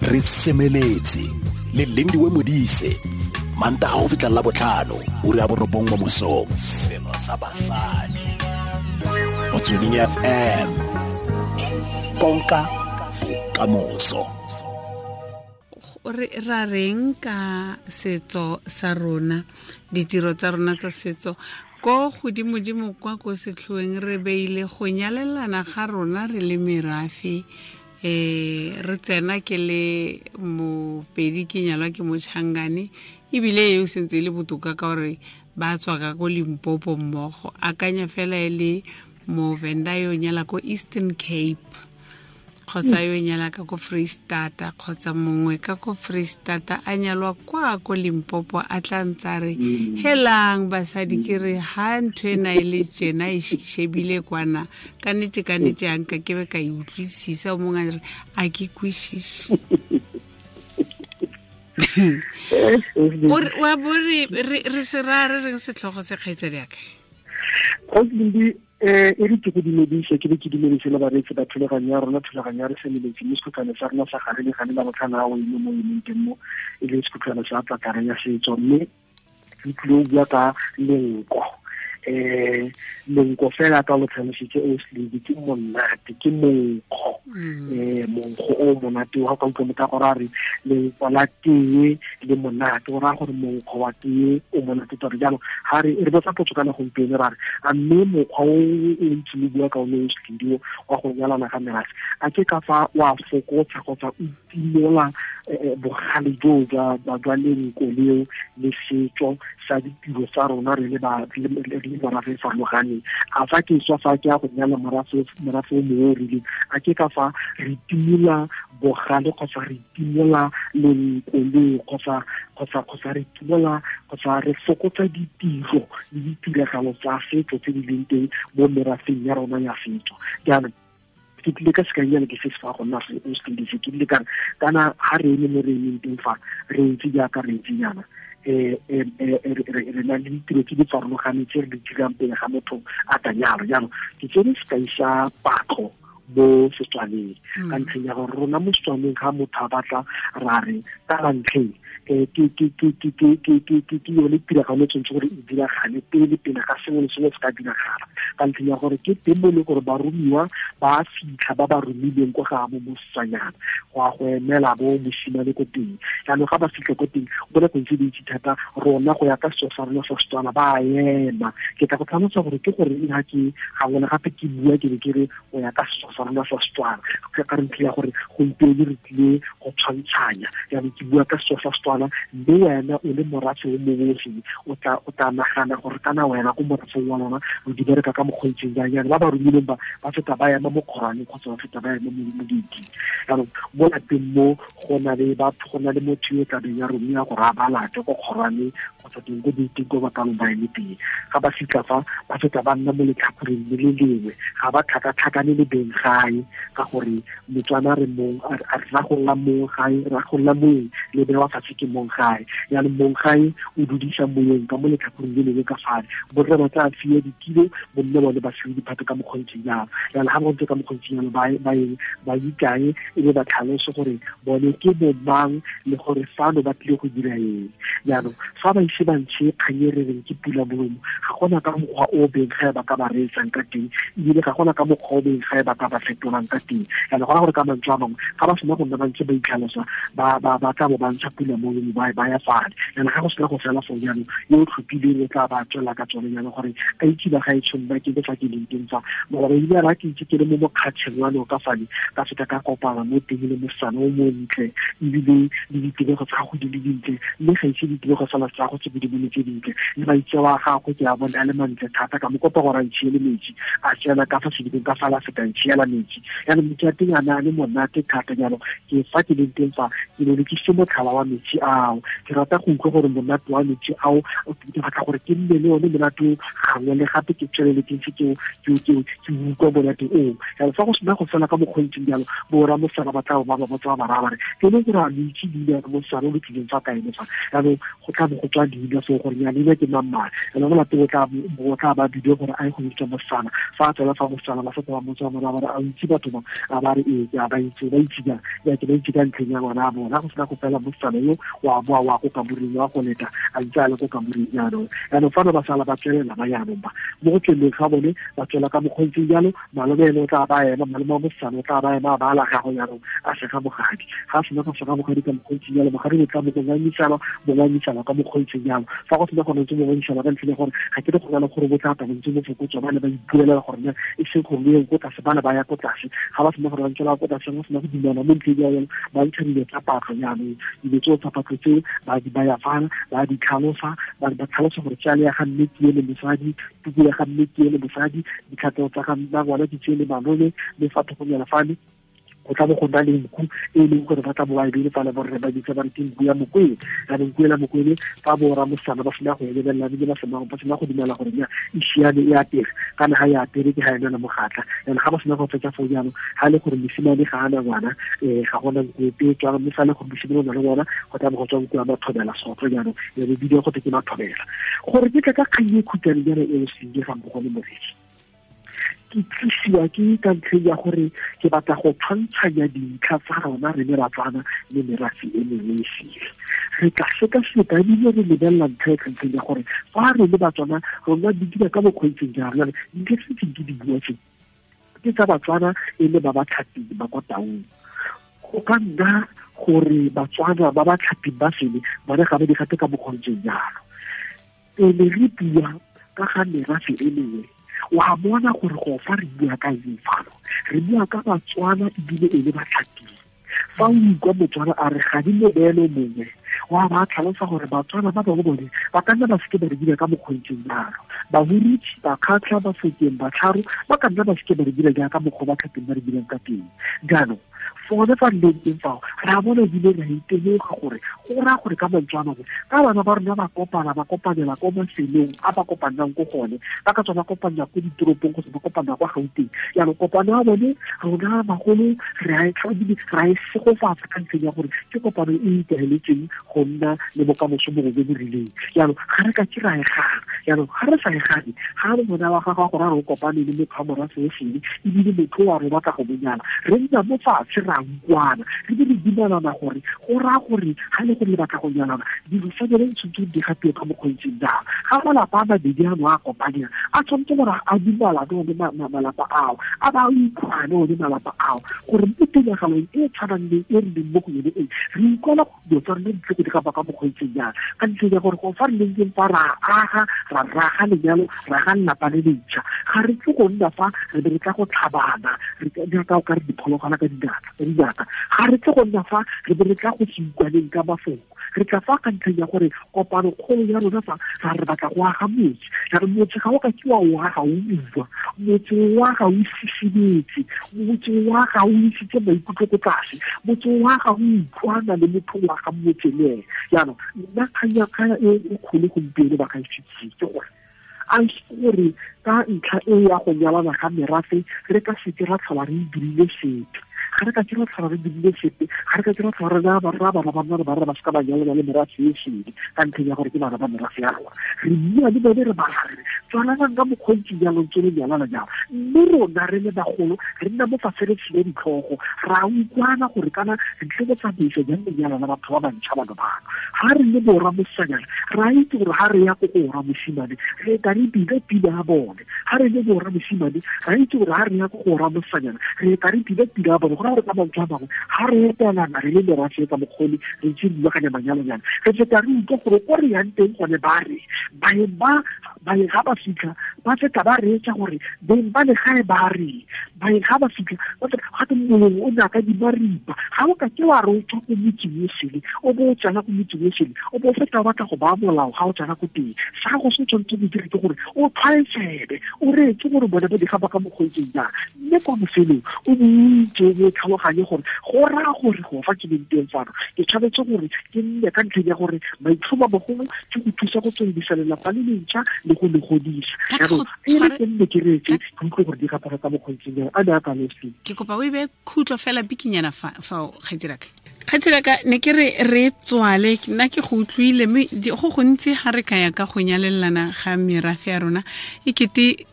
Re semeletse le Lindiwe Modise, Mantaga go fitlha la botlhano, ura ya 9 mo mosong. Selo sa basadi. Motsweding FM. Konka bokamoso. Re ra reng ka setso sa rona, ditiro tsa rona tsa setso ko godimodimo kwa ko setlhoeng re beile go nyalelana ga rona re le merafe. Re tsena ke le Mopedi, ke nyalwa ke Mochangane, ebile eo sentse e le botoka ka gore ba tswa ka ko Limpopo mmogo. Akanya fela e le Movenda yo nyala ko Eastern Cape, kgotsa yo nyala ka ko Freistata, kgotsa mongwe ka ko Freistata a nyalwa kwa ko Limpopo, a tla ntsa re helang basadi, ke re ha ntho ena e le tjena e shebile kwana, ka nnete ka nnete ha nka ke be ka e utlwisisa. O mongwe a re a ke kwisise. Wa bo re se ra re reng setlhogo se, kgaitsadi ya ka? E re ke go dumedise, ke be ke dumedise le bareetsi ba thulaganyo ya rona, thulaganyo ya re semeletse mme sekhutlhwane sa rona sa gare le gane la botlhano a o ile mo e leng teng mo, e leng sekhutlhwane sa tlatlare ya setso. Mme re tlile go bua ka lenko. Lenko fela ka lo tlhalositse o sledi, ke monate, ke monkgo. Monkgo o monate wa ka utlwa motho a gore a re lenko la tee le monate, o raya gore monkgo wa tee o monate tota. Jaanong ga re botsa potso kana gompieno, ra re a mme mokgwa o o ntse o bua ka one o sledi o wa go nyalana ga merafe, a ke ka fa wa fokotsa kgotsa o timola bogale joo jwa lenko leo le setso sa ditiro tsa rona re le ba re le morafe e farologaneng? A fa ke tswa fa ke ya go nyala morafe o mongwe o rileng, a ke ka fa re timola bogale kgotsa re timola lenko leo kgotsa re timola kgotsa re fokotsa ditiro le ditiragalo tsa setso tse di leng teng mo merafeng ya rona ya setso? Jaanong ke tlile ka sekainyana ke se se fa go nna se o se tlile, ke tlile ka re kana ha re eme mo re emeng teng fa, re ntse jaaka re ntse jaana, re na le ditiro tse di farologaneng tse re di dirang pele ga motho a ka nyalwa. Jaanong ke tsere sekai sa patlo mo Setswaneng, ka ntlheng ya gore rona mo Setswaneng ga motho a batla ra re ka la ntlheng, ke yone tiragalo e tshwanetse gore e diragale pele ga sengwe le sengwe se ka diragala, ka ntlheng ya gore ke teng mo e leng gore baromiwa ba fitlha ba ba romilweng kwa ga bo mosetsanyana go ya go emela bo mosimane ko teng. Jaanong ga ba fitlha ko teng, mo nakong tse dintsi thata rona go ya ka setso sa rona sa Setswana ba ema. Ke tla go tlhalosa gore ke gore ha ke gangwe le gape ke bua ke be ke re go ya ka setso sa rona sa Setswana, ka re ntlha ya gore gompieno re tlile go tshwantshanya. Jaanong ke bua ka setso sa Setswana, mme wena o le morafe o mongwe o sele, o tla nagana gore kana wena ko morafeng wa lona o di bereka ka mokgwa o ntseng jang. Jaanong ba ba romileng ba feta ba ema mo kgorwaneng kgotsa ba feta ba ema mo gate-ing. Jaanong mo lapeng mo go na le batho, go na le motho yo o tlabeng ya romiwa gore a ba late ko kgorwaneng kgotsa teng ko gate-ing ko ba ka ba eme teng. Ga ba fitlha fa, ba feta ba nna mo letlhakoreng le le lengwe, ga ba tlhakatlhakane le beng gae, ka gore Motswana re mong, a re ra go lla mong gae, ra go lla moeng le bewa fatshe ke mong gae. Jaanong mong gae o dudisa moeng ka mo letlhakoreng le lengwe ka fale, borre ba tla fiwa ditilo, bomme bone ba fiwe diphato ka mokgwa o ntseng jalo. Jaanong ga ba ntse ka mokgwa o ntseng jalo, ba ikae e be ba tlhalose gore bone ke bomang le gore fano ba tlile go dira eng. Jaanong fa ba ise ba ntshe kgang e re reng ke pula molomo, ga gona ka mokgwa o beng gae ba ka ba reetsang ka teng, ebile ga gona ka mokgwa o beng gae ba ka ba fetolang ka teng. Jaanong gona gore ka mantswe a mangwe, ga ba sena go nna ba ntse ba itlhalosa, ba tla bo ba ntsha pula molomo, ba ya fale. Jaanong ga go sena go fela foo, jaanong yo o tlhophileng o tla ba tswela ka tsone jaanong gore a itse ba gaetsho nna ke le fa ke leng teng fa. Mara ba ile ba ke itse ke le mo mokgatšheng wa noka fale, ka feta ka kopana mo teng le mosetsana o montle, ebile le ditebego tsa gago di le dintle, mme ga ise ditebego fela tsa gago tse di bone tse dintle, le maitseo a gagwe ke a bone a le mantle thata. Ka mo kopa gore a ntšhiele metsi, a tsena ka fa sedibeng ka fala feta ntšhiela metsi. Jaanong metsi a teng a ne a le monate thata. Jaanong ke fa ke leng teng fa, ke ne ke se motlhala wa metsi ao, ke rata go utlwa gore monate wa metsi ao, ke batla gore ke nne le one monate o gangwe le gape, ke tswelele ke ntse ke utlwa monate oo. Jaanong fa go sena go fela ka mokgwa o ntseng jalo, bo rra mosetsana ba tla ba ba botsa ba raya ba re ke le gore a lo itse leina la mosetsana o lo tlileng fa kaene fa. Jaanong go tla bo go tswa leina so gore ya leina ke mang ene mo lapeng o tla ba bidio gore a ye go bitsa mosetsana fa a tswela fa mosetsana ba feta ba motsa mora ba re a itse batho ba a ba re ee ke a ba itse ba itse jang ya ke ba itse ka ntlheng ya ngwana a bona go sena go fela mosetsana yo wa boa wa ko kamoreng wa go leta a ntse a le ko kamoreng jaanong jaanong fano ba sala ba tswelela ba jaanong ba mo go tsweleng ga bone ba tswela ka mokgontseng jalo malome ene o tla ba ema malome wa mosetsana o tla ba ema a ba ala gago jaanong a sega bogadi ga a sena go sega bogadi ka mokgontseng jalo bogadi bo tla bo ngangisana ka mokgontseng jalo fa go sena go ntse bo ngangisana ka ntlheng ya gore ga ke re go na le gore bo tla tla bo ntse bo fokotswa ba ne ba ipuelela gore ne e seng gore le ko tlase ba ne ba ya ko tlase ga ba sena gore ba ntsela ko tlase go sena go dumela mo ntlheng ya yone ba ntsha dilo tsa patlo jaanong dilo tseo tsa patlo tseo ba di baya fana ba di tlhalosa ba tlhalosa gore tšale ya ga mme ke ele mosadi tuku ya ga mme ke ele mosadi ditlhatlego tsa ga mma ngwana ke tsele malome mme fa thokonyana fane go tla bo go nna le nku e leng gore ba tla bo ba e beile fale borre ba bitsa ba re ke nku ya mokwele jaanong nku ela mokwele fa bo ramosana ba sena go e lebelela ebile ba sena go dumela gore nya e siame e apere kana ga e apere ke ga e nana mogatla jaanong ga ba sena go fetsa foo jaanong ga e le gore mosimane ga ana ngwana ga gona nku epe e tswang mme fa e le gore mosimane o na le ngwana go tla bo go tswa nku ya mathobela sotlo jaanong ya be bidiwa go te ke mathobela gore ke tla ka kgang e khutshwane jaana e o senge ga mmogo le moredi ke tlisiwa ke ka ntlheng ya gore ke batla go tshwantshanya dintlha tsa rona re le Batswana le merafe e mengwe e sele re tla sekaseka ebile re lebelela ntlha e ka ntlheng ya gore fa re le Batswana rona di dira ka bokgweetseng jang jale dintlha tse ntseng ke di bua tse ke tsa Batswana e le ba ba tlhaping ba kwa Taung go ka nna gore Batswana ba ba tlhaping ba sele bone ga ba di gate ka bokgontseng jalo pele re bua ka ga merafe e mengwe wa bona gore go fa re bua ka eng fano re bua ka Batswana ebile e le batlhaping fa o ikwa Motswana a re ga di mobeelo mongwe wa ba tlhalosa gore Batswana ba bangwe bone ba ka nna ba seke ba re dira ka mokgontseng jalo Bahurutshe Bakgatlha Bafokeng Batlharo ba ka nna ba seke ba re dira jaaka mokgwa ba tlhapeng ba re dirang ka teng jaanong fone fa re leng teng fao re a bona ebile re a itemoga gore go raya gore ka mantswe a mangwe ka bana ba rona ba kopana ba kopanela ko mafelong a ba kopanang ko gone ba ka tswa ba kopanela ko ditoropong kgotsa ba kopanela kwa Gauteng jaanong kopano ya bone rona bagolo re a e segofatsa ka ntlheng ya gore ke kopano e ikaeletseng go nna le bokamoso bongwe jo bo rileng jaanong ga re ka ke ra e gana jaanong ga re sa e gane ga re bona wa gago gore a re o kopane le motho wa morafe o sele ebile motho wa re batla go monyala re nna mo fatshe ra utlwana re be re dumelana gore go raya gore ga le gore le batla go nyalana dilo sa bone tshwanetse di gatiwe ka mokgweetseng jang ga malapa a mabedi ano a kopaneng a tshwanetse gore a dumalane one malapa ao a ba utlwane one malapa ao gore mo tiragalong e tshwanang le e re leng mo go yone e re utlwala dilo tsa rona di tle go di gapa ka mokgweetseng jang ka ntlheng ya gore go fa re leng teng fa ra aga ra raga lenyalo ra ga lelapa le lentšha ga re tle go nna fa re be re tla go tlhabana re jaaka o ka re diphologwana ka dinaka ga re tle go nna fa re be re tla go se utlwaneng ka mafoko re tla fa ka ntlheng ya gore kopano kgolo ya rona fa ra re batla go aga motse ra re motse ga o ka ke wa o aga o utlwa motse wa ga o sisibetse motse wa ga o isitse maikutlo ko tlase motse wa ga o utlwana le motho wa ga motse le ene jaanong nna kgang e kgolo gompieno ba ga isitse ke gore a gore ka ntlha e ya go nyalana ga merafe re ka seke ra tlhola re dirile sepe ga re ka ke ra tlhola re dirile sepe ga re ka ke ra tlhola re naya barra bana ba nna re barra ba seka ba nyalana le merafe e sele ka ntlheng ya gore ke bana ba merafe ya rona re bua le bone re ba re tswalanang ka mokgontsi jalo ntse le nyalana jalo mme rona re le bagolo re nna mo fatshe re tshile ditlhogo ra utlwana gore kana re tle go tsamaisa jang lenyalo la batho ba bantšha bano bano ga re le borra mosanyana ra itse gore ga re ya ko go borra mosimane re ka re bile pila ya bone ga re le borra mosimane ra itse gore ga re ya ko go borra mosanyana re ka re bile pila ya bone go ra gore ka mantswe a mangwe ga re etelana re le merafe ka mokgole re ntse re rulaganya manyalonyana re feta re utlwa gore ko re yang teng gone ba re baeng ba baeng ga ba fitlha ba feta ba reetsa gore beng ba legae ba re baeng ga ba fitlha ba feta gate mongwe o ne ka di maripa ga o ka ke wa re o tswa ko motseng o sele o bo o tsena ko motseng o sele o bo o feta o batla go baya molao ga o tsena ko teng sa go se tshwanetse go dire ke gore o tlhwaetsebe o reetse gore bone ba di gapa ka mokgweetseng jang mme kwa bofelong o bo itse o bo tlhaloganye gore go raya gore go fa ke leng teng fano ke tshwanetse gore ke nne ka ntlheng ya gore maitlhomo a mogolo ke go thusa go tsweledisa lelapa le lentšha le go le godisa jaanong So e re ke nne ke reetse ke utlwe gore di gapara ka mokgontseng jang a ne a kane se. Ke kopa o e beye khutlo fela bikinyana fa kgaitsiraka. Kgaitsiraka ne ke re re tswale nna ke go utlwile mme go gontsi ga re ka ya ka go nyalelana ga merafe ya rona e kete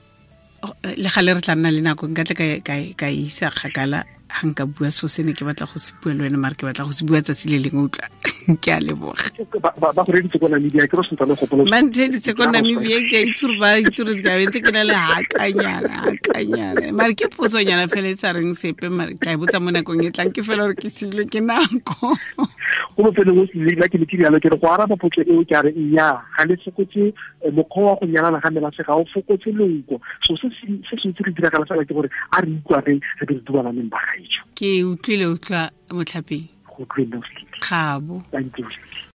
le gale re tla nna le nako nka tle ka isa kgakala ga nka bua so se ne ke batla go se bua le wena mare ke batla go se bua tsatsi le lengwe utlwa. Ke a leboga. Ba go reditse ko Namibia ke re sentse le gopola. Ba ntheeditse ko Namibia ke a itse gore ba itse gore ke a bentse ke na le hakanyana mare ke potsonyana fela e sa reng sepe mare ka e botsa mo nakong e tlang ke fela gore ke silwe ke nako. Go bofelong o se ke ne ke rialo ke re go araba potso eo ke a re nnyaa ga le fokotse mokgwa wa go nyalana ga merafe ga o fokotse lonko. So se se ntse re diragala fela ke gore a re utlwaneng re be re dubalaneng ba gaetsho. Ke utlwile utlwa motlhapeng. Go utlwile. Kgabo. Thank you.